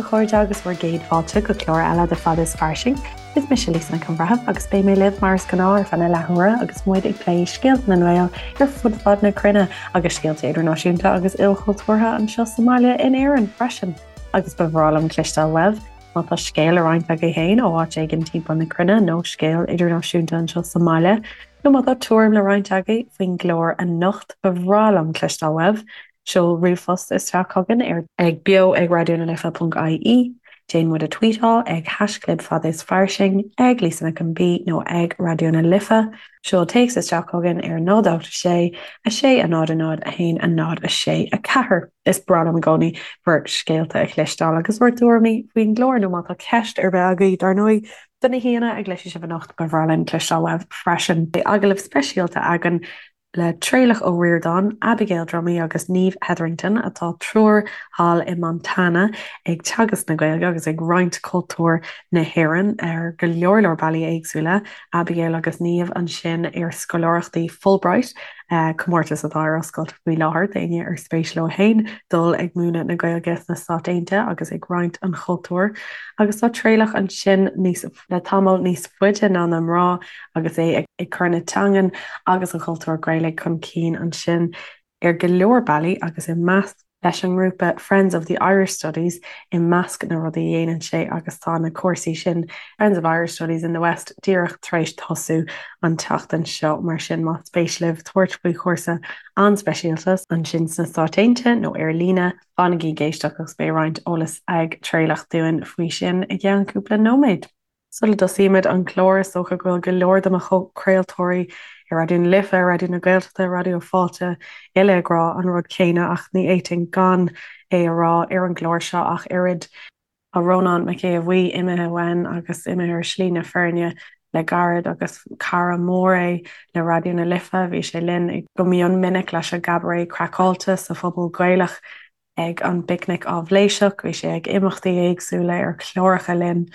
chairde agus bhur gcéad fáilte go clár eile de Fada is Fairsing. Is mise Lisa Nic an Bhreithimh agus beidh mé libh mar is gnáth ar feadh na leathuaire agus muid ag plé scéalta na nGael ar fud fad na cruinne agus scéalta idirnáisiúnta agus ilchultúrtha anseo sa mbaile in Éirinn freisin. Agus ba bhreá liom cloisteáil uaibh má tá scéal le roinnt agaibh féin ó áit éigin timpeall na cruinne nó scéal idirnáisiúnta anseo sa mbaile nó má tá tuairim le roinnt agaibh faoin gclár anocht ba bhreá liom cloisteáil uaibh. Seol ríomhphost isteach chugainn ar ag beo ag raidionalife.ie, déan muid a tweetáil ag haischlib fada is fairsing, ag Lisa Nic an B nó ag Raidió na Life. Seol téacs isteach chugainn ar 0 8 6 6 0 0 1 0 6 4. Is breá liom i gcónaí bhur scéalta a chloisteáil agus bhur dtuairimí faoin gclár nó má tá ceist ar bith agaibh, dar ndóigh, do na haíonna a gcloisfidh sibh anocht, ba bhreá linn cloisteáil uaibh freisin. Beidh agallamh speisialta againn le Traolach Ó Ríordáin, Abigail Dromey agus Niamh Hetherington, atá triúr thall i Montana ag teagasc na Gaeilge agus ag roinnt cultúr na hÉireann ar go leor leor bealaí éagsúla. Abigail agus Niamh ansin ar scoláireachtaí Fulbright, comórtas atá ar oscailt faoi láthair d'éinne ar spéis leo féin dul ag múineadh na Gaeilge sna Stáit Aontaithe agus ag roinnt an chultúir. Agus tá Traolach ansin níos. le tamall níos faide ná na mná agus é ag cur na teangan agus an chultúir Ghaelaigh chun cinn ansin ar go leor bealaí agus i measc leis an ngrúpa Friends of the Irish Studies i measc na rudaí a dhéanann sé agus tá na cúrsaí sin Friends of Irish Studies in the West díreach tar éis tosú an tseachtain seo mar sin más spéis libh tabhairt faoi chúrsa an-speisialta ansin sna Stáit Aontaithe nó ar líne Fanaigí ag éisteacht agus beidh roinnt eolais ag Traolach dúinn faoi sin i gceann cúpla nóiméad. Sula dtosaímid an clár, is dócha go bhfuil go leor de mo chomhchraoltóirí ar Raidió na Life, Raidió na Gaeltachta, Raidió Fáilte uile ag rá an rud céanna ach ní fhéadfainn gan é a rá ar an gclár seo ach oiread. Tá Rónán Mac Aodha Bhuí imithe uainn agus imithe ar shlí na fírinne le gairid agus cara mór é le Raidió na Life. Bhí sé linn go mion minic leis an gCabaret Craiceáilte sa Phuball Gaelach ag an bPicnic Áibhléiseach. Bhí sé ag imeachtaí éagsúla ar chláracha linn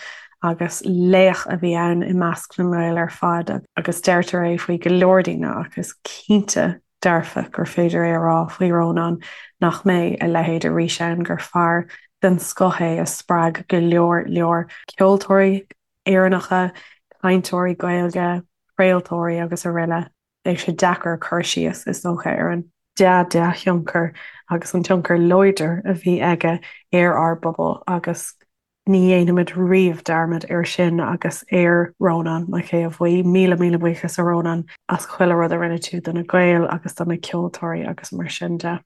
agus laoch a bhí ann i measc na nGael ar fad agus deirtear é faoi go leor daoine ach is cinnte dearfa gur féidir é a rá faoi Rónán nach mbeidh a leithéid arís ann, gur fear den scoth é a spreag go leor leor ceoltóirí Éireannacha, cainteoirí Gaeilge, craoltóirí agus araile. Beidh sé deacair cur síos, is dócha, ar an dea-dea-thionchar agus an tionchar láidir a bhí aige ar ár bpobal agus Ní dhéanfaimid riamh dearmad air sin agus ar Rónán Mac Aodha Bhuí. Míle míle buíochas a Rónán as chuile rud a rinne tú do na Gaeil agus do na ceoltóirí agus mar sin de.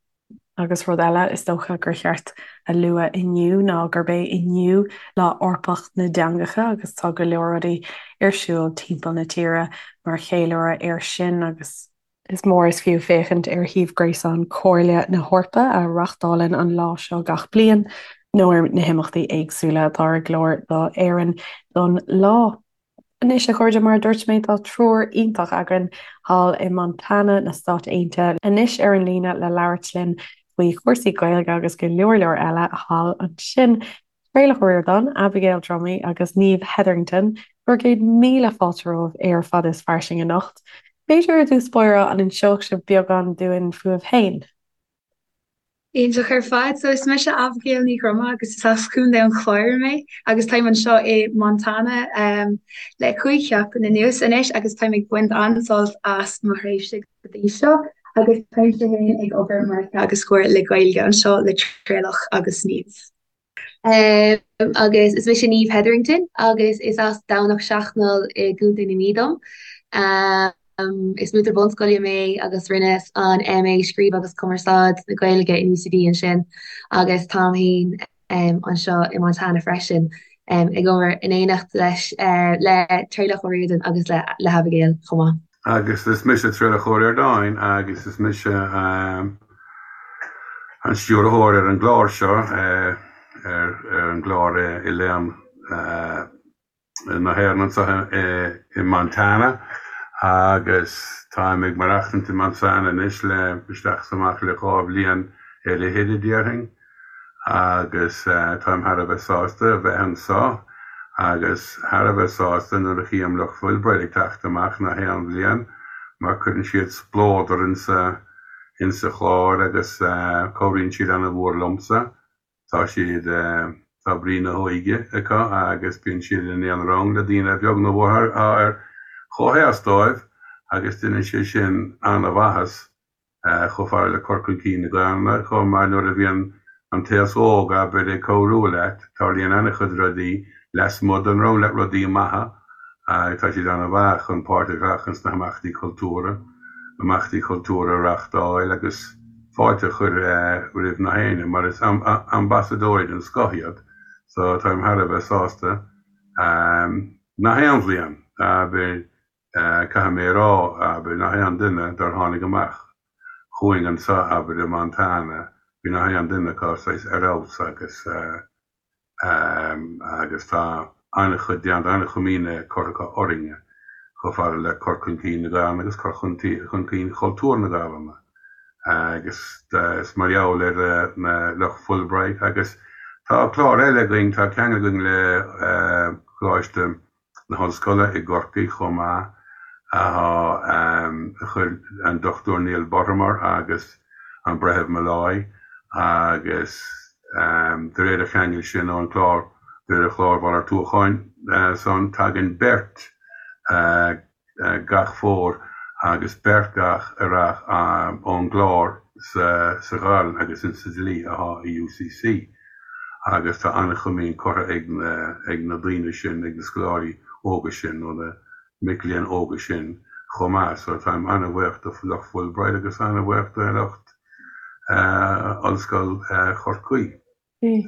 Agus rud eile is dócha gur cheart a lua inniu ná gurb é inniu Lá Eorpach na dTeangacha agus tá go leor rudaí ar siúl timpeall na tíre mar cheiliúradh air sin agus Is mór is fiú féachaint ar shuíomh gréasáin Chomhairle na hEorpa, a reáchtálann an lá seo gach bliain, nó ar na himeachtaí éagsúla atá ar an gclár d'Éirinn don lá. Anois, a chairde, mar a dúirt mé, tá triúr iontach againn thall i Montana na Stát Aontaithe anois ar an líne le labhairt linn faoi chúrsaí Gaeilge agus go leor leor eile thall ansin. Traolach Ó Ríordáin, Abigail Dromey agus Niamh Hetherington, bhur gcéad míle fáilte romhaibh ar Fada is Fairsing anocht. B'fhéidir ar dtús báire an inseodh sibh beagán dúinn fúibh féin? Iontach ar fad. So is mise Abigail Ní Dhroma agus is as Contae an Chláir mé agus táim anseo i Montana le 5 sheachtain anuas anois agus táim ag baint an-sult as mo thréimhse go dtí seo agus táimse féin ag obair mar theagascóir le Gaeilge anseo le Traolach agus Niamh. Agus is mise Niamh Hetherington agus is as Domhnach Seachnaill i gContae na Mí dom. Is múinteoir bunscoile mé agus rinneas an MA Scríobh agus Cumarsáid na Gaeilge in UCD ansin agus táim féin anseo i Montana freisin ag obair in éineacht leis le Traolach Ó Ríordáin agus le hAbigail chomh maith. Agus is mise Traolach Ó Ríordáin agus is mise an stiúrthóir ar an gclár seo, ar an gclár Oileán na hÉireann anseo i Montana agus táim ag maireachtaint i Montana anois le isteach is amach le 2 bhliain ar fhichid a déarfainn. agus táim thar a bheith sásta a bheith anseo agus thar a bheith sásta nuair a chím lucht Fulbright ag teacht amach nach aon bhliain mar cuireann siad spleodar insa insa chlár agus cabhraíonn siad ana-mhór liomsa. Tá siad. Tá brí na hóige acu agus bíonn siad in aon rang le daoine a bheag nó a mhór atá ar chomhaois dóibh agus déanann sé sin an-mhaitheas chomh fada le cur chun cinn na Gaelainne chomh maith nuair a bhíonn an t-aos óg, abair, ag cabhrú leat, tarlaíonn an-chuid rudaí lasmuigh den rang leat, rudaí maithe agus tá siad an-mhaith chun páirt a ghlacadh sna himeachtaí cultúrtha, imeachtaí cultúrtha a reáchtáil agus fáilte a chur roimh na héinne mar is ambasadóirí den scoth iad so táim thar a bheith sásta. Nach aon bhliain, abair, Caithfidh mé a rá, abair, nach aon duine dár tháinig amach chugainn anso, abair, i Montana, bhí nach aon duine acu saghas ar fheabhas agus, agus tá an-chuid déanta, an-chomaoin curtha acu orainne chomh fada le cur chun cinn na Gaelainne agus cur chun cinn chultúr na Gaelainne agus is mar gheall ar na lucht Fulbright agus tá clár eile againn, tá ceangal againn le Coláiste na hOllscoile i gCorcaigh chomh maith, a chuir an Dr Neil Buttimer agus an Breitheamh Molloy agus de réir an cheangail sin ón chlár, de réir an chláir mhalartúcháin san, tagann beirt gach fómhar agus beirt gach earrach ón gclár sa Ghaelainn agus insa dlí athá i UCC. agus tá an-chomaoin curtha ag na ag na daoine sin, ag na scoláirí óga sin nó na mic léinn óga sin chomh maith. So táim an-bhuíoch do lucht Fulbright agus an-bhuíoch do lucht Ollscoil Chorcaí.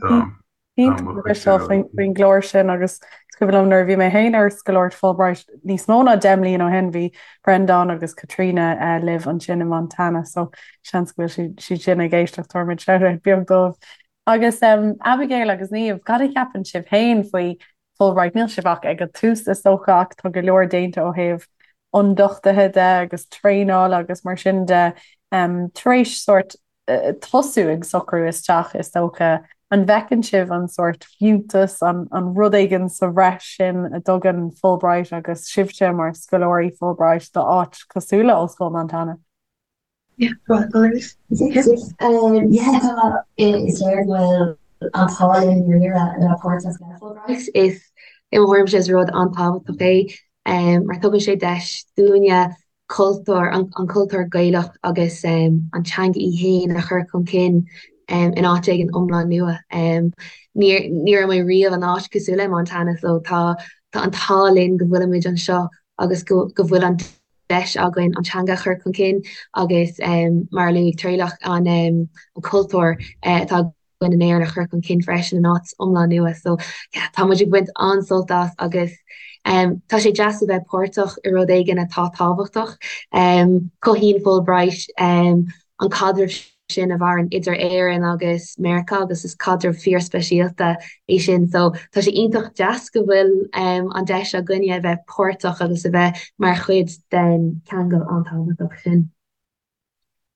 So tá mo chuid sin faoin gclár sin agus is cuimhin liom nuair a bhí mé féin ar scoláireacht Fulbright níos mó ná 10 mbliana ó shin bhí Breandán agus Caitríona libh ansin i Montana so seans go bhfuil siad sin ag éisteacht tabharfaimid shout-out beag dóibh. Agus Abigail agus Niamh, cad a cheapann sibh féin faoi Fulbright? Níl sibh ach ag an tús is dócha ach tá go leor déanta ó thaobh ionduchtaithe de agus traenála agus mar sin de tar éis sórt tosú ag socrú isteach is dócha. An bhfeiceann sibh an sórt fiúntas, an an rud éigin sa bhreis sin a dtugann Fulbright agus sibhse mar scoláirí Fulbright do áit cosúil le Ollscoil Montana? Yeah, tá is léir go bhfuil an t-ádh linn i ndáiríre a bheith páirteach le Fulbright. Is i mo thuairimse is rud an-tábhachtach é mar tugann sé deis dúinne cultúr, an cultúr Gaelach agus an teanga í féin a chur chun cinn in áit éigin iomlán nua. Ní ní raibh mé riamh in áit cosúil le Montana so tá tá an t-ádh linn go bhfuilimid anseo agus go go bhfuil an deis againn an teanga a chur chun cinn agus mar a luaigh Traolach an cultúr atá againn in Éirinn a chur chun cinn freisin in áit iomlán nua. So yeah, tá muid ag baint an-sult as agus tá sé deas a bheith páirteach i rud éigin atá tábhachtach. Cothaíonn Fulbright an caidreamh sin a mhaireann idir Éirinn agus Meiriceá agus is caidreamh fíorspeisialta é sin. So tá sé iontach deas go bhfuil an deis againne a bheith páirteach agus a bheith mar chuid den cheangal an-tábhachtach sin.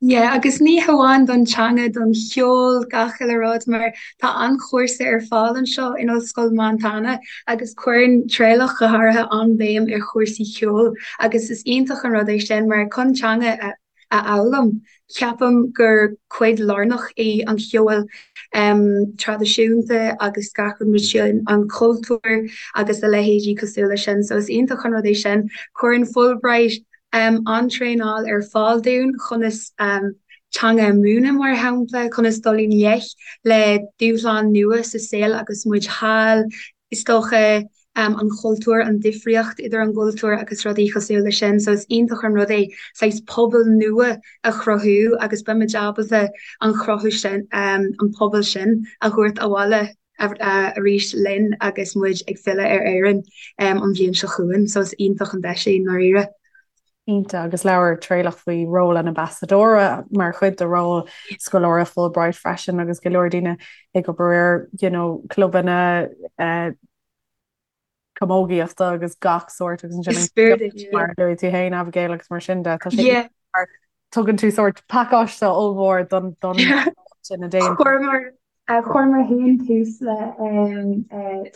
Yeah, agus ní hamháin don teanga, don cheol, gach uile rud, mar tá an-chúrsa ar fáil anseo in Ollscoil Montana agus cuireann Traolach go háirithe an-bhéim ar chúrsaí ceoil agus is iontach an rud é sin mar chun teanga a a fhoghlaim. Ceapaim gur cuid lárnach í an cheol traidisiúnta agus gach rud mar sin, an cultúr agus a leithéidí cosúil leis sin. So is iontach an rud é sin. Cuireann Fulbright an-traenáil ar fáil dúinn conas teanga a mhúineadh, mar shampla, conas dul i ngleic le dúshláin nua sa saol agus muid thall, is dócha. an chultúr, an difríocht idir an gcultúr agus rudaí cosúil leis sin. So is iontach an rud é saghas pobal nua a chruthú agus beimid ábalta an chruthú sin, an pobal sin a thabhairt abhaile arís linn agus muid ag filleadh ar Éirinn an bhliain seo chugainn. So is iontach an deis é i ndáiríre. Iontach, agus labhair Traolach faoi ról an ambasadóra mar chuid de ról scoláire Fulbright freisin agus go leor daoine ag obair ar you know, clubanna uh, camógaíochta agus gach sórt agus ansin mar a luaigh tú féin Abigail agus mar sin de tá sé yeah. tugann tú sórt pacáiste ollmhór don don sin a déan. Chuireamar féin tús le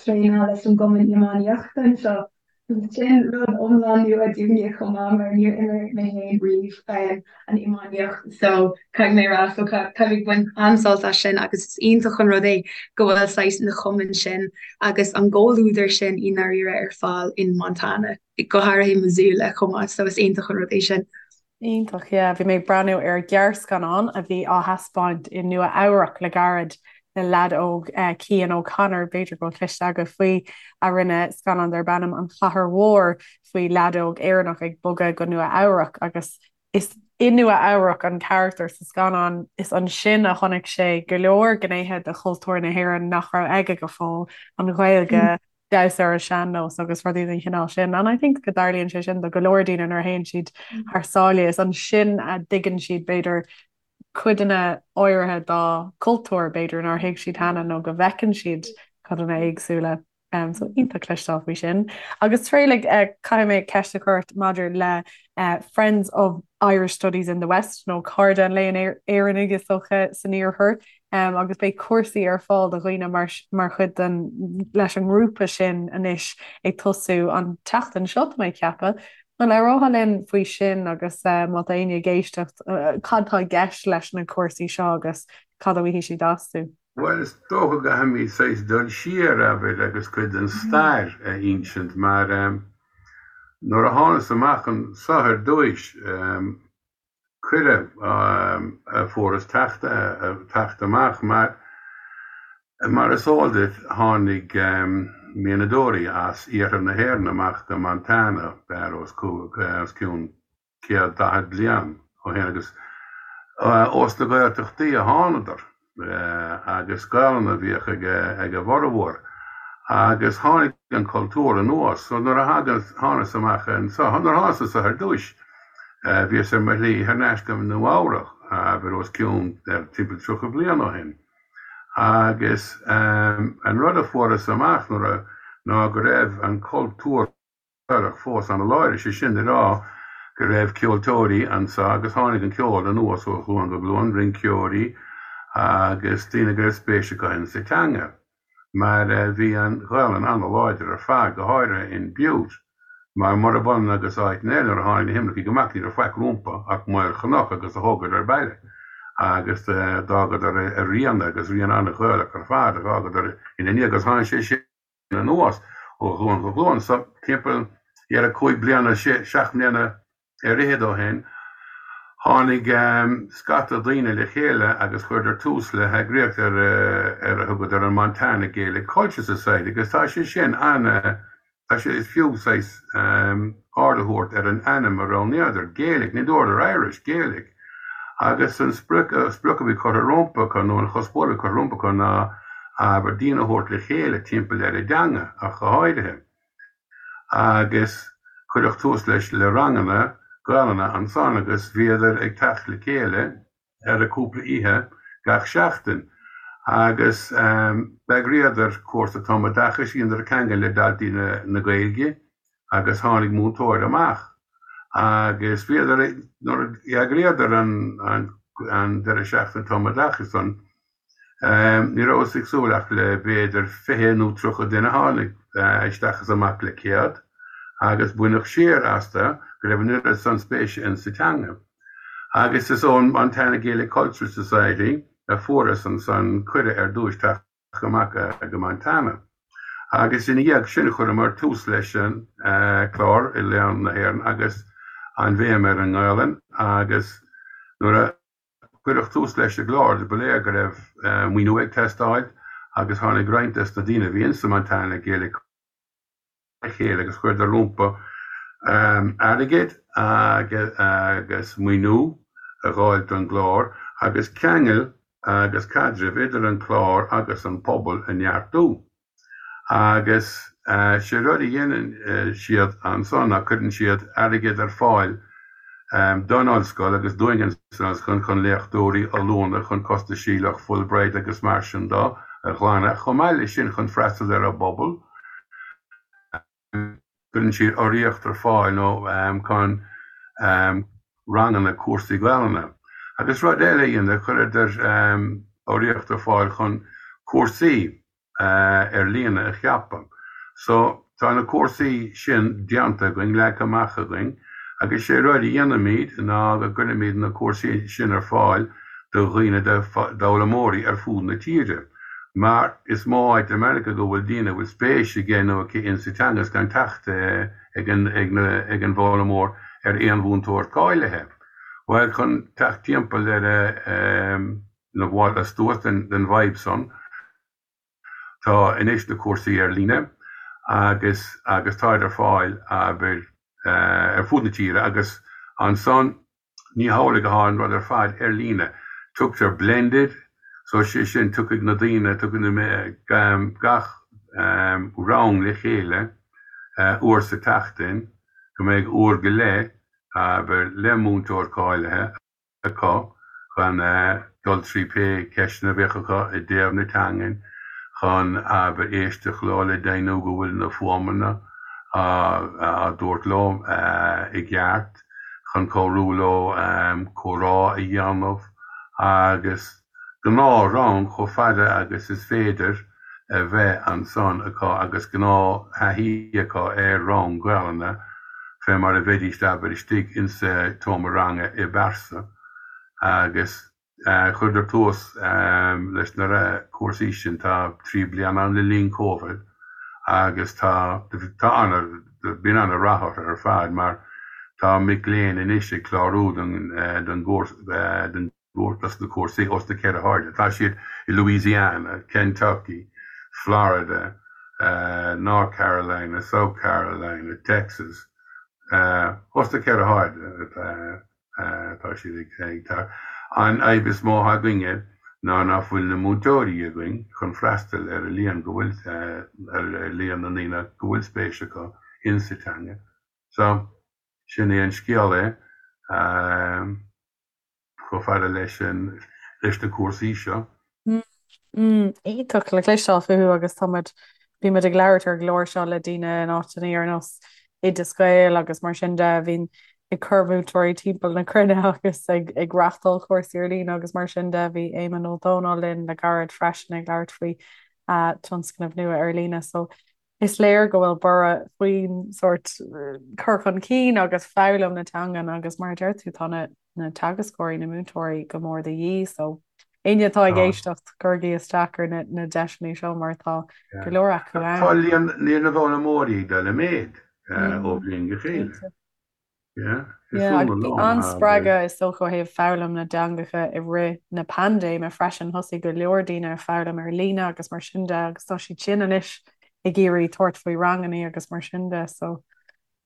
traenáil leis an gcumann iománaíochta anseo. Sin rud iomlán nua dúinne chomh maith mar níor imir mé féin riamh an iománaíocht so caithfidh mé a rá so táim ag baint an-sult as sin agus is iontach an rud é go bhfuil saghas na cumainn sin agus an gcomhluadar sin i ndáiríre ar fáil in Montana, go háirithe i Missoula chomh maith so is iontach an rud é sin. Iontach, yeah. Bhí mé ag breathnú ar ghearrscannán a bhí á thaispeáint i Nua Eabhrac le gairid le leaid óg, Cian O'Connor, b'fhéidir go bhfuil cloiste agaibh faoi, a rinne scannán darb ainm An Chathair Mhór faoi leaid óg Éireannach ag bogadh go Nua Eabhrac agus is i Nua Eabhrac an carachtar sa scannán, is ansin a chonaic sé go leor gnéithe de chultúr na hÉireann nach raibh aige go fóill, an Ghaeilge, damhsa ar an sean-nós agus rudaí den chineál sin. And I think go dtarlaíonn sé sin do go leor daoine nuair a théann siad thar sáile, is ansin a dtuigeann siad b'fhéidir codanna áirithe dá cultúr b'fhéidir nár thuig siad cheana nó go bhfeiceann siad codanna éagsúla. Um, so iontach cloisteáil faoi sin. Agus Traolach uh, caithfidh mé ceist a chur ort maidir le uh, Friends of Irish Studies in the West nó Cairde an Léinn Éireannaigh is dócha san iarthar. agus beidh cúrsaí ar fáil do dhaoine mar mar chuid den leis an ngrúpa sin anois ag tosú an tseachtain seo tá mé ag ceapadh. An labhrófá linn faoi sin agus má tá éinne ag éisteacht cad tá i gceist leis na cúrsaí seo agus cad a bhfaighidh siad astu? Bhuel, is dócha go gcaithfimid saghas dul siar, abair, agus cuid den stair a insint mar nuair a thánas amach anso ar dtúis, cuireadh a fuaireas teacht amach mar, mar is eol duit, tháinig mianadóirí as iarthar na hÉireann amach go Montana os cionn 140 bliain ó shin agus ós na Gaeltachtaí a thánadar. agus Gaelainn a bhíodh ag a bhformhór agus tháinig an cultúr anuas. So nuair a thánas amach anso, nuair a thánas anso ar dtúis, bhíos ar mo shlí thar n-ais go Nua Eabhrach, abair os cionn timpeall 30 bliain ó shin. Agus an rud a fuaireas amach nuair a, ná go raibh an cultúr, Gaelach fós ana-láidir, sé sin le rá go raibh ceoltóirí anso agus tháinig an ceol anuas ó ghlúin go glúin, rinceoirí agus daoine go raibh spéis acu insa teanga mar bhí an Ghaelainn ana-láidir ar fad, go háirithe in Butte mar murab ionann agus áiteanna eile nuair a tháinig na himircigh amach ní raibh faic rompu ach maol chnoc agus do thógadar baile agus d'fhágadar a rian agus rian ana-Ghaelach ar fad a dh'fhágadar ina ndiaidh agus tháinig sé sin anuas ó ghlúin go glúin. So, timpeall dhera 5 bliana, 7 mbliana ar fhichead ó shin, tháinig scata daoine le chéile agus chuireadar tús le heagraíocht ar ar a thugadar an Montana Gaelic Culture Society agus tá sé sin ana, tá sé, is fiú saghas aird a thabhairt ar an ainm a roghnaíodar, Gaelic, ní dúradar Irish, Gaelic. Agus an sprioc, sprioc a bhí curtha rompu acu nó an chuspóir a bhí curtha rompu acu ná abair, daoine a thabhairt le chéile timpeall ar an dteanga ach go háirithe. Agus cuireadh tús leis le ranganna Gaelainne ansan agus bhíodar ag teacht le chéile ar cúpla oíche gach seachtain agus d'eagraíodar cúrsa tumoideachais, dheineadar ceangal le Daltaí na Gaeilge agus tháinig múinteoir amach agus bhíodar, nuair a d'eagraíodar an deireadh seachtaine tumoideachais san, Ní rabhas ag súil ach le b'fhéidir 20 nó 30 duine, tháinig isteach is amach le 100 agus baineadh siar astu go raibh an oiread san spéise in sa teanga. Agus is ón Montana Gaelic Cultural Society a fuaireas ansan cuireadh ar dtúis teacht amach go Montana. Agus ina dhiaidh sin chuireamar tús leis an clár Oileán na hÉireann agus an bhéim ar an nGaelainn agus nuair a Cuireadh tús leis an gclár, ba léir go raibh maoiniú ag teastáil agus tháinig roinnt des na daoine a bhí insa Montana Gaelic le chéile agus chuireadar rompu airgead agus maoiniú a dh'fháil don gclár agus ceangal agus caidreamh idir an clár agus an pobal a neartú. Agus sé rud a dhéanann siad ansan ná cuireann siad airgead ar fáil don ollscoil agus dúinn san ollscoil chun léachtóirí, ollúna, chun costaisí lucht Fulbright agus mar sin do a ghlanadh, chomh maith leis sin chun freastal ar an bpobal. Cuireann siad urraíocht ar fáil nó chun ranganna, cúrsaí Gaelainne. Agus rud eile a dhéanadar, chuireadar urraíocht ar fáil chun cúrsaí ar líne a cheapadh. So. tá na cúrsaí sin déanta againn, leagtha amach againn, agus sé rud a dhéanaimid ná go gcuirimid na cúrsaí sin ar fáil do dhaoine, d'fhoghlaimeoirí ar fud na tíre. Mar is mó áit i Meiriceá go bhfuil daoine a bhfuil spéis aige nó aici insa teanga is gan teacht ag an ag an bhfoghlaimeoir ar aon mhúinteoir cáilithe. Bhuel, chun teacht timpeall ar na bhfáil astuas den bhfadhb san, Tá anois na cúrsaí ar líne agus agus táid ar fáil abair ar fud na tíre agus ansan ní hamhlaidh athá an rud ar fad ar líne. Tugtar blended so sé sin tiocfaidh na daoine, tiocfaidh na gach rang le chéile uair sa tseachtain go mbeidh uair go leith abair le múinteoir cáilithe. acu chun dul trí pé ceisteanna a bheadh acu i dtaobh na teangan, chun abair éisteacht leo le deimhniú go bhfuil na fuaimeanna á dtabhairt leo i gceart, chun cabhrú leo comhrá a dhéanamh agus gnáth-rang chomh fada agus is féidir a bheith ansan acu agus gnáth-thaithí acu ar rang Gaelainne fé mar a bheidíst abair istigh insa tseomra ranga i bpearsa agus chuireadar tús leis na cúrsaí sin tá 3 bliana ann le linn Covid agus tá tá ana bíonn ana rath orthu ar fad mar tá mic léinn anois ag clárú don don gcúrsa don dos na cúrsaí ós na ceithre hairde. Tá siad i Louisiana, Kentucky, Florida, North Carolina, South Carolina, Texas, os na ceithre hairde atá siad ag teacht. An fhadhb is mó atá againne ná nach bhfuil na múinteoirí againn chun freastal ar an líon go bhfuil, ar líon na ndaoine go bhfuil spéis acu insa teanga. So, sin é an scéal é. chomh fada leis an leis na cúrsaí seo. Iontach le cloisteáil fúthu agus tá muid, bíonn muid ag labhairt ar an gclár seo le daoine in áiteanna ar nós Oideas Gael agus mar sin de a bhíonn ag cur múinteoirí timpeall na cruinne agus ag ag reáchtáil cúrsaí ar líne agus mar sin de. Bhí Éamonn Ó Dónaill linn le gairid freisin ag labhairt faoi tionscnamh nua ar líne so Is léir go bhfuil borradh faoin sórt cur chun cinn agus foghlaim na teangan agus mar a deir tú tá na na teagascóirí, na múinteoirí go mór de dhíth so éinne atá ag éisteacht cuirigí isteach ar na na deiseanna seo mar tá go leor acu ann. Tá líon na bhfoghlaimeoirí ag dul i méad ó bhliain go chéile. Bhí an-spreagadh is dócha ó thaobh foghlaim na dteangacha i rith na paindéime freisin. Thosaigh go leor daoine ag foghlaim ar líne agus mar sin de agus tá siad sin anois ag iarraidh tabhairt faoi ranganna agus mar sin de so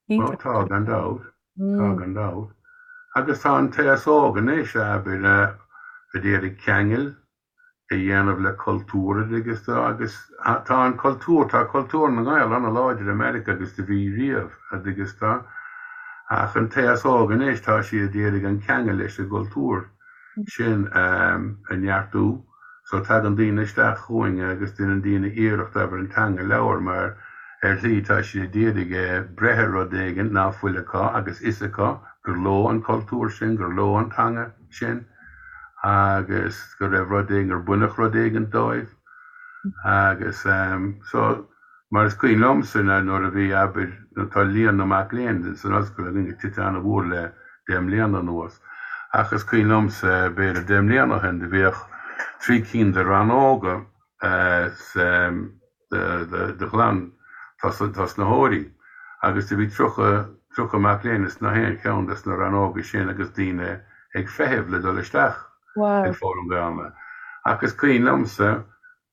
iontach. Tá gan dabht, tá gan dabht. Agus tá an t-aos óg anois, abair, a d'iarraidh ceangal a dhéanamh le cultúr agus agus tá an cultúr, tá cultúr na nGael ana-láidir i Meiriceá agus do bhí riamh agus tá ach an t-aos óg anois tá siad ag iarraidh an ceangal leis an gcultúr sin a neartú so tagann daoine isteach chugainn agus déanann daoine iarracht abair an teanga a labhairt mar ar shlí tá siad ag iarraidh breith ar rud éigin ná fuil acu agus fhios acu gur leo an cultúr sin, gur leo an teanga sin. agus go raibh rud éigin, gur baineadh rud éigin dóibh agus so mar is cuimhin liomsa nuair a bhí, abair, tá líon na mac léinn san ollscoil againn ag titim an-mhór le deich mbliana anuas ach is cuimhin liomsa b'fhéidir deich mbliana ó shin do bhíodh 3 cinn de rannóga sa de ghlan-tosnaitheoirí agus do bhí 30, 30 mac léinn ins na haon cheann des na rannóga sin agus daoine ag feitheamh le dul isteach ag foghlaim Gaelainne. Ach is cuimhin liomsa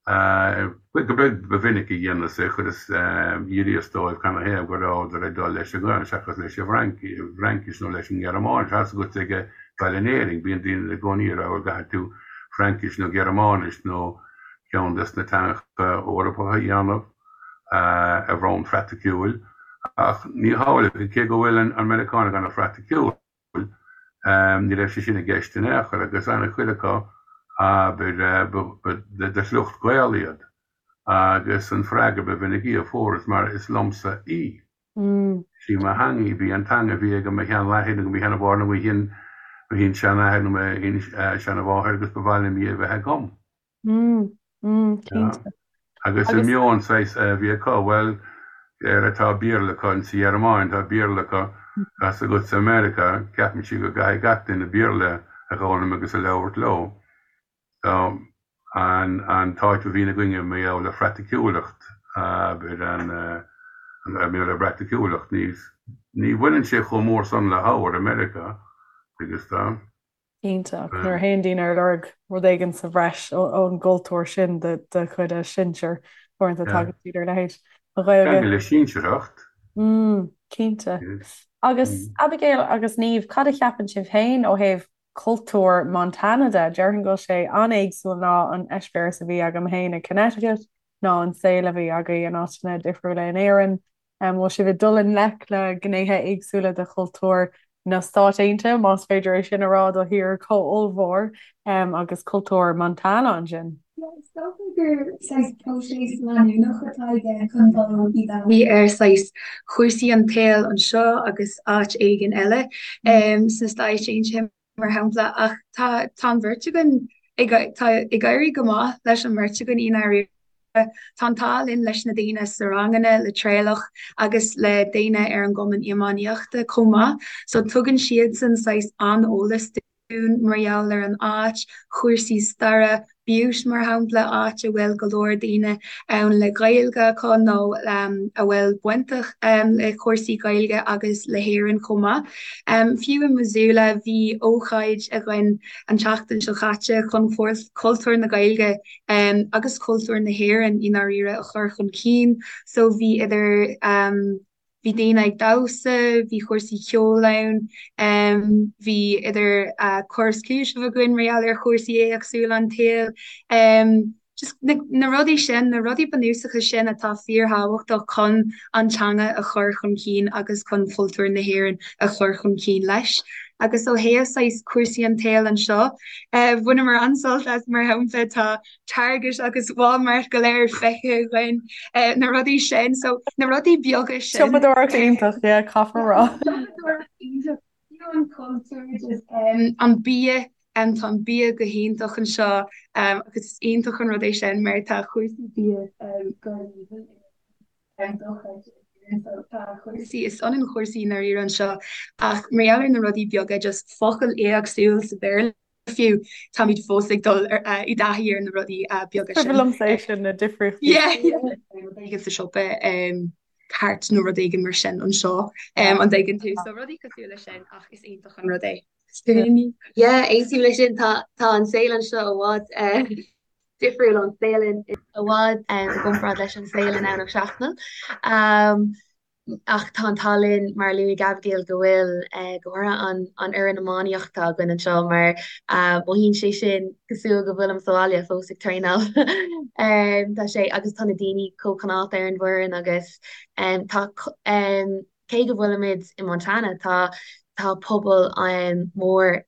go beag ba mhinic a dhéanas é, chuireas, d'fhiafraíos dóibh canathaobh go rabhadar ag dul leis an nGaelainn seachas leis an bhFraincis nó leis an nGearmáinis. Tá's agat ag dul in Éirinn, bíonn daoine i gcónaí ag rá bhuel caithfidh tú Fraincis nó Gearmáinis nó ceann des na teangacha Eorpacha a dhéanamh ar bhonn phraiticiúil, ach ní hamhlaidh, cé go bhfuil an Meiriceánach ana-phraiticiúil, ní raibh sé sin i gceist in aon chor, agus ana-chuid acu, abair, ba de shliocht Gael iad, agus an freagra ba mhinicí a fuaireas mar is liomsa í. Sí mo theanga í, b'í an teanga a bhí ag mo sheanathair nó mo sheanmháthair nó mo shin-seanathair nó mo shin-seanmháthair agus ba mhaith liom í a bheith agam. Cinnte. Agus an meon saghas a bhí acu, bhuel, Éire tá Béarla acu, in sa Ghearmáin tá Béarla acu, tá 's agat sa Meiriceá, ceapann siad go gcaithfidh gach duine Béarla a dh'fhoghlaim agus a labhairt leo. So, an an t-áit a bhíonn againne mar gheall ar phraiticiúlacht, abair, an mar gheall ar phraiticiúlacht, ní ní bhaineann sé chomh mór san le hábhar i Meiriceá, agus tá. Cinnte, ach nuair a théann daoine ar lorg rud éigin sa bhreis ón gcultúr sin de chuid a sinsear, uaireanta tagann siad ar a leithéid. An Ghaeilge. Ceangal le sinsearthacht. Mm, cinnte. Agus Abigail agus Niamh, cad a cheapann sibh féin ó thaobh cultúr Montana de? Déarfainn go bhfuil sé an-éagsúil ná an eispéireas a bhí agam féin i Connecticut, ná an saol a bhí agaibh in áiteanna difriúla in Éirinn. An bhfuil sibh ag dul i ngleic le gnéithe éagsúla de chultúr na Stát Aontaithe, más féidir é sin a rá do thír chomh ollmhór, agus cultúr Montana ansin? Yeah, is dócha gur saghas próiseas leanúnach atá i gceist chun dul i dtaithí ar saghas chúrsaí an tsaoil anseo agus áit éigin eile sna Stáit Aontaithe mar shampla, ach tá tá an bheirt againn ag tá ag éirí go maith leis an mbeirt againn i ndáiríre. Tá an t-ádh linn leis na daoine sna ranganna, le Traolach agus le daoine ar an gcumann iománaíochta chomh maith. So tugann siadsan saghas an-eolas dúinn mar gheall ar an áit, chúrsaí staire, Butte mar shampla, áit a bhfuil go leor daoine ann le Gaeilge acu nó a bhfuil bainteach le cúrsaí Gaeilge agus le hÉirinn chomh maith. Fiú i Missoula bhí ócáid againn an tseachtain seo caite chun cultúr na Gaeilge agus cultúr na hÉireann i ndáiríre a chur chun cinn. So bhí idir bhí daoine ag damhsa, bhí cúrsaí ceoil ann, bhí idir cur is cúiteamh againn mar gheall ar chúrsaí éagsúla an tsaoil. Just na rudaí sin, na rudaí bunúsacha sin atá fíorthábhachtach chun an teanga a chur chun cinn agus chun cultúr na hÉireann a chur chun cinn leis. Agus ó thaobh saghas cúrsaí an tsaoil anseo, bhaineamar an-sult as mar shampla tá Target agus Walmart go léir feicthe againn, na rudaí sin. So na rudaí beaga sin. Siopadóireacht iontach, yeah, caithfear a rá. Siopadóireacht iontach, fiú an cultúr, just an bia, tá an bia go hiontach anseo agus is iontach an rud é sin mar tá cúrsaí bia go haoibhinn dochreidte in Éirinn. So tá cúrsaí, is ionann cúrsaí i ndáiríre anseo ach mar gheall ar na rudaí beaga, just focal éagsúil sa Bhéarla, fiú, táimid fós ag dul i dtaithí ar na rudaí beaga sin. Cuimhin liomsa é sin, na difríochtaí. Yeah, yeah. Rud éigin sa siopa, cairt nó rud éigin mar sin anseo, an dtuigeann tú? So rudaí cosúil leis sin ach is iontach an rud é. Yeah, aontaím leis sin, tá an saol anseo i bhfad difriúil ón saol in i bhfad i gcomparáid leis an saol i nDomhnach Seachnaill. Ach tá an t-ádh linn, mar a luaigh Abigail, go bhfuil go háirithe an an fhoireann iománaíochta againn anseo mar mothaíonn sé sin cosúil go bhfuilim sa bhaile fós ag traenáil. Tá sé agus tá na daoine chomh cineálta ar an bhfoireann agus tá cé go bhfuilimid i Montana tá tá pobal mór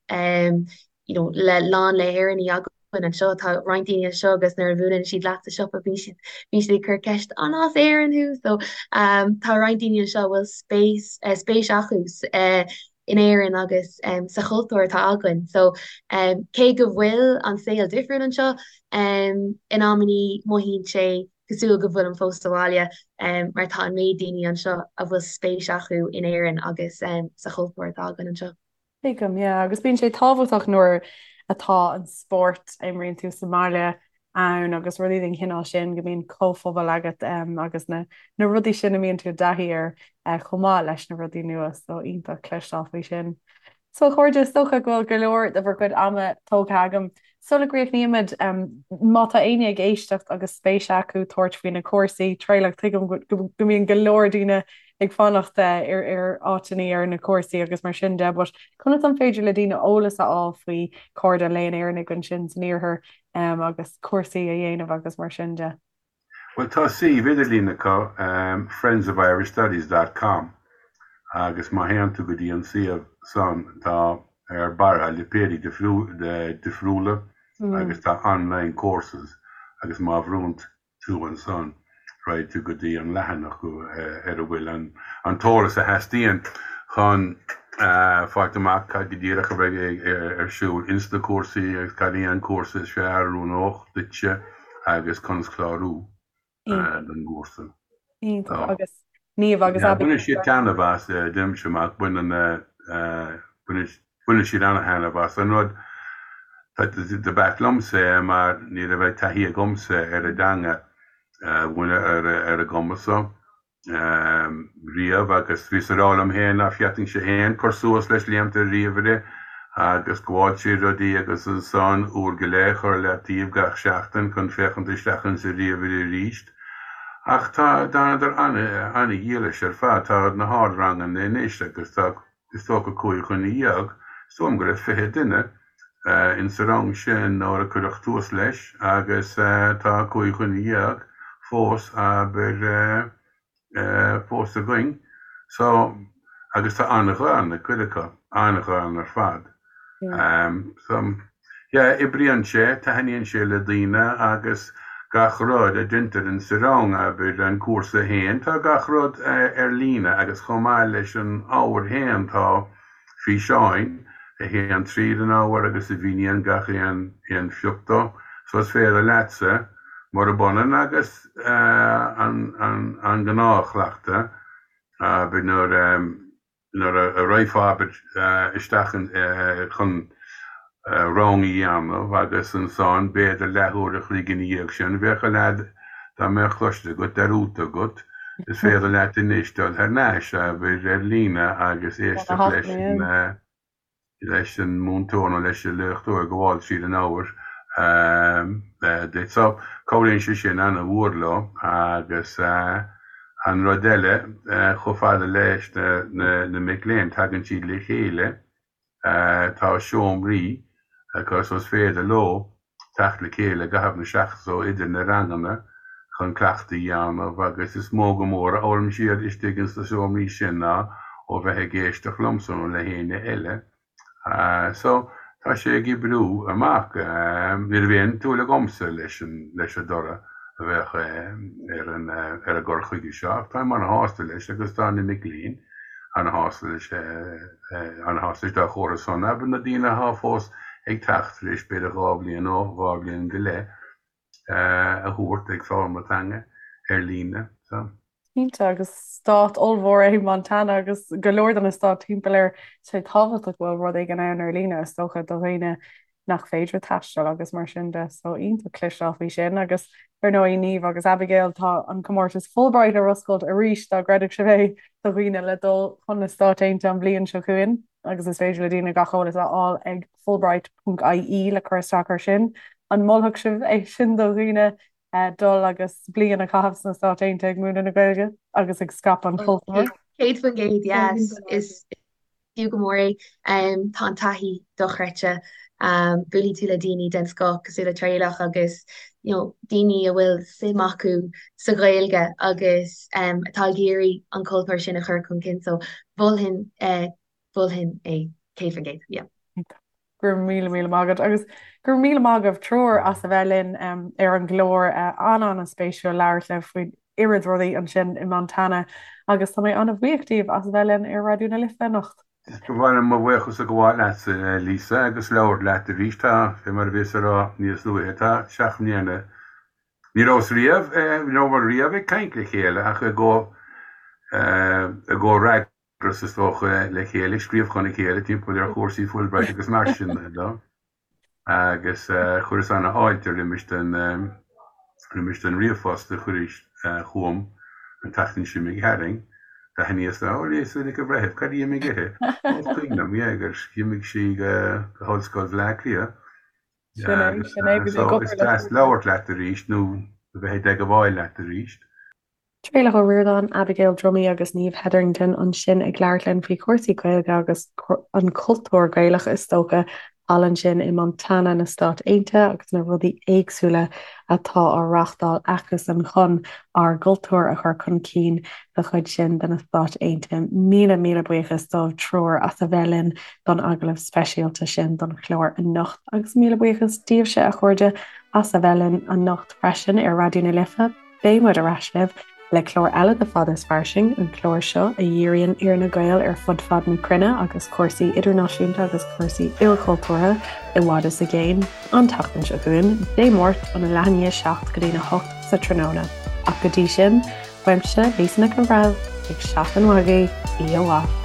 you know le lán le hÉireannaigh againn anseo. Tá roinnt daoine anseo agus nuair a bhuaileann siad leat sa siopa bíonn siad bíonn siad ag cur ceist an as Éirinn thú? So um, tá roinnt daoine anseo a bhfuil spéis uh, spéis acu uh, in Éirinn agus um, sa chultúr atá againn. So um, cé go bhfuil an saol difriúil anseo um, in amannaí mothaíonn sé cosúil go bhfuilim fós sa bhaile um, mar tá an méid daoine anseo a bhfuil spéis acu in Éirinn agus um, sa chultúr atá againn anseo. Tuigim, yeah. Agus bíonn sé tábhachtach nuair atá an spórt a imríonn tú sa mbaile ann agus rudaí den chineál sin, go mbíonn comhphobal agat agus na na rudaí sin a mbíonn tú i dtaithí air chomh maith leis na rudaí nua, so iontach cloisteáil faoi sin. So a chairde, is dócha go bhfuil go leor de bhur gcuid ama tógtha agam. Sula gcríochnaímid, má tá éinne ag éisteacht agus spéis acu tabhairt faoi na cúrsaí, Traolach, tuigim go mbíonn go leor daoine ag fanacht ar ar áiteanna ar na cúrsaí agus mar sin de, but conas an féidir le daoine eolas a fháil faoi Cairde an Léinn Éireannaigh ansin san iarthar agus cúrsaí a dhéanamh agus mar sin de? Bhuel, tá suíomh idirlín acu, friendsofirishstudies dot com, agus má théann tú go dtí an suíomh san, tá ar barra lipéidí difriúla agus tá online courses agus má bhrúnn tú ansan, raghaidh tú go dtí an leathanach ar a bhfuil an t-eolas a theastaíonn chun fáilt amach cad go díreach a bheidh ar siúl ins na cúrsaí agus cad é an cúrsa is fearr a oiriúnódh duitse agus conas clárú don gcúrsa. Iontach. Agus. Niamh agus Abigail. Baineann siad taitneamh as, deirimse amach, baineann baineann siad an-taitneamh as. An rud do b'ait liomsa é mar ní raibh taithí agamsa ar an dteanga a mhúineadh ar an gcuma so. riamh agus bhíos ag rá liom féin ná féadfainnse féin cur suas leis léimt ar ríomhaire agus gabháil trí rudaí agus ansan uair go leith a chur le taobh gach seachtain chun féachaint isteach insa ríomhaire arís. Ach tá, d'fhanadar ana-dhílis ar fad. Tá na hardranganna anois agus tá is dócha 15 dhuine, is dóigh liom go raibh 20 duine insa rang sin nuair a cuireadh tús leis agus tá 15 dhuine fós, abair, fós againn. So, agus tá an-ghean ag cuid acu, an-ghean ar fad. So, yeah, oibríonn sé, taitníonn sé le daoine agus gach rud a deintear insa rang, abair, an cúrsa féin, tá gach rud ar líne agus chomh maith leis an ábhar féin tá físeáin a théann tríd an ábhar agus a mhíníonn gach aon aon phioc dó. So is féidir leatsa, murab ionann agus an an an gnáthchleachtadh, abair, nuair nuair a raghfá, abair, isteach chun rang a dhéanamh agus ansan b'fhéidir leathuair a chloig ina dhiaidh sin bheadh a leath dá mbeadh cloiste agat dearúdta agat, is féidir leat anois dul thar n-ais, abair, ar líne agus éisteacht leis an. leis an múinteoir nó leis an léachtóir ag gabháil tríd an ábhar duit. So, cabhraíonn sé sin ana-mhór leo agus an rud eile, chomh fada leis na mic léinn, tagann siad le chéile, tá seomraí acu so is féidir leo teacht le chéile i gcaitheamh na seachtaine so idir na ranganna chun cleachtadh a dhéanamh agus is mó go mór a fhoghlaim siad istigh ins na seomraí sin ná ó bheith ag éisteacht liomsa nó le héinne eile. So, tá sé ag oibriú amach. Ní raibh aon tsúil agamsa leis an leis an dtoradh a bheadh ar an ar an gcur chuige seo ach táim ana-shásta leis agus tá na mic léinn ana-shásta leis ana-shásta leis dá chomhartha san, abair, na daoine athá fós ag teacht tar éis b'fhéidir 2 bhliain nó 2 bhliain go leith a thabhairt ag foghlaim na teanga ar líne. So. Cinnte, agus stát ollmhór é Montana agus go leor de na stáit timpeall air, tá sé tábhachtach go bhfuil rud éigin ann ar líne, is dócha, do dhaoine nach féidir taisteal agus mar sin de. So iontach cloisteáil faoi sin agus ar ndóigh Niamh agus Abigail tá an comórtas Fulbright ar oscailt arís dá gcreidfeadh sibh é do dhaoine le dul chun na Stáit Aontaithe an bhliain seo chugainn agus is féidir le daoine gach eolas a fháil ag fulbright.ie le cur isteach air sin. An molfadh sibh é sin do dhaoine dul agus bliain a chaitheamh sna Stáit Aontaithe ag múineadh na Gaeilge agus ag scaipeadh an chultúir? 100% yes. Is fiú go mór é. Tá an taithí dochreidte. Buailfidh tú le daoine den scoth cosúil le Traolach agus you know daoine a bhfuil suim acu sa Ghaeilge agus atá ag iarraidh an cultúr sin a chur chun cinn. So mholfainn mholfainn é 100%, yeah. Go raibh míle míle maith agat agus go raibh míle maith agaibh triúr as a bheith linn ar an gclár. An-an-spéisiúil labhairt libh faoin oiread rudaí ansin i Montana agus tá mé an-bhuíoch díobh as a bheith linn ar Raidió na Life anocht. Ba mhaith liom mo bhuíochas a ghabháil leatsa, Lisa, agus labhairt leat arís. Tá, fé mar a bhíos a rá níos luaithe, tá seacht mbliana, ní rabhas riamh, ní rabhamar riamh ag caint le chéile ach i gcomhfhreagras. agus is dócha le chéile, ag scríobh chun a chéile timpeall ar chúrsaí Fulbright agus mar sin de. Agus chuireas ana-fháilte roimis den roimis den ríomhphost a chuiris chugam an tseachtain seo imigh tharainn. D'aithníos ó Lisa Nic an Bhreithimh, cad a d'imigh uirthi? Ó is cuimhin liom, yeah, gur imigh sí go hOllscoil Bhaile Átha Cliath. Sin é, sin é, bhí mé ag So is obair le deas labhairt leat arís nó a bheith i dteagmháil leat arís. Traolach Ó Ríordáin, Abigail Dromey agus Niamh Hetherington ansin ag labhairt linn faoi chúrsaí Gaeilge agus an cultúr Gaelach is dócha thall ansin i Montana na Stát Aontaithe agus na rudaí éagsúla atá á reáchtáil acusan chun ár gcultúr a chur chun cinn sa chuid sin de na Stáit Aontaithe. Míle míle buíochas dóibh triúr as a bheith linn don agallamh speisialta sin don chlár anocht agus míle buíochas daoibhse a chairde as a bheith linn anocht freisin ar Raidió na Life. Beidh muid ar ais libh le clár eile de Fada is Fairsing, an clár seo a dhíríonn ar na Gaeil ar fud fad na cruinne agus cúrsaí idirnáisiúnta agus cúrsaí ilchultúrtha i bhfad is i gcéin, an tseachtain seo chugainn, Dé Máirt óna leath i ndiaidh 7 go dtína 8 sa tráthnóna. Ach go dtí sin, uaimse, Lisa Nic an Bhreithimh. Beidh seachtain mhaith agaibh, oíche mhaith.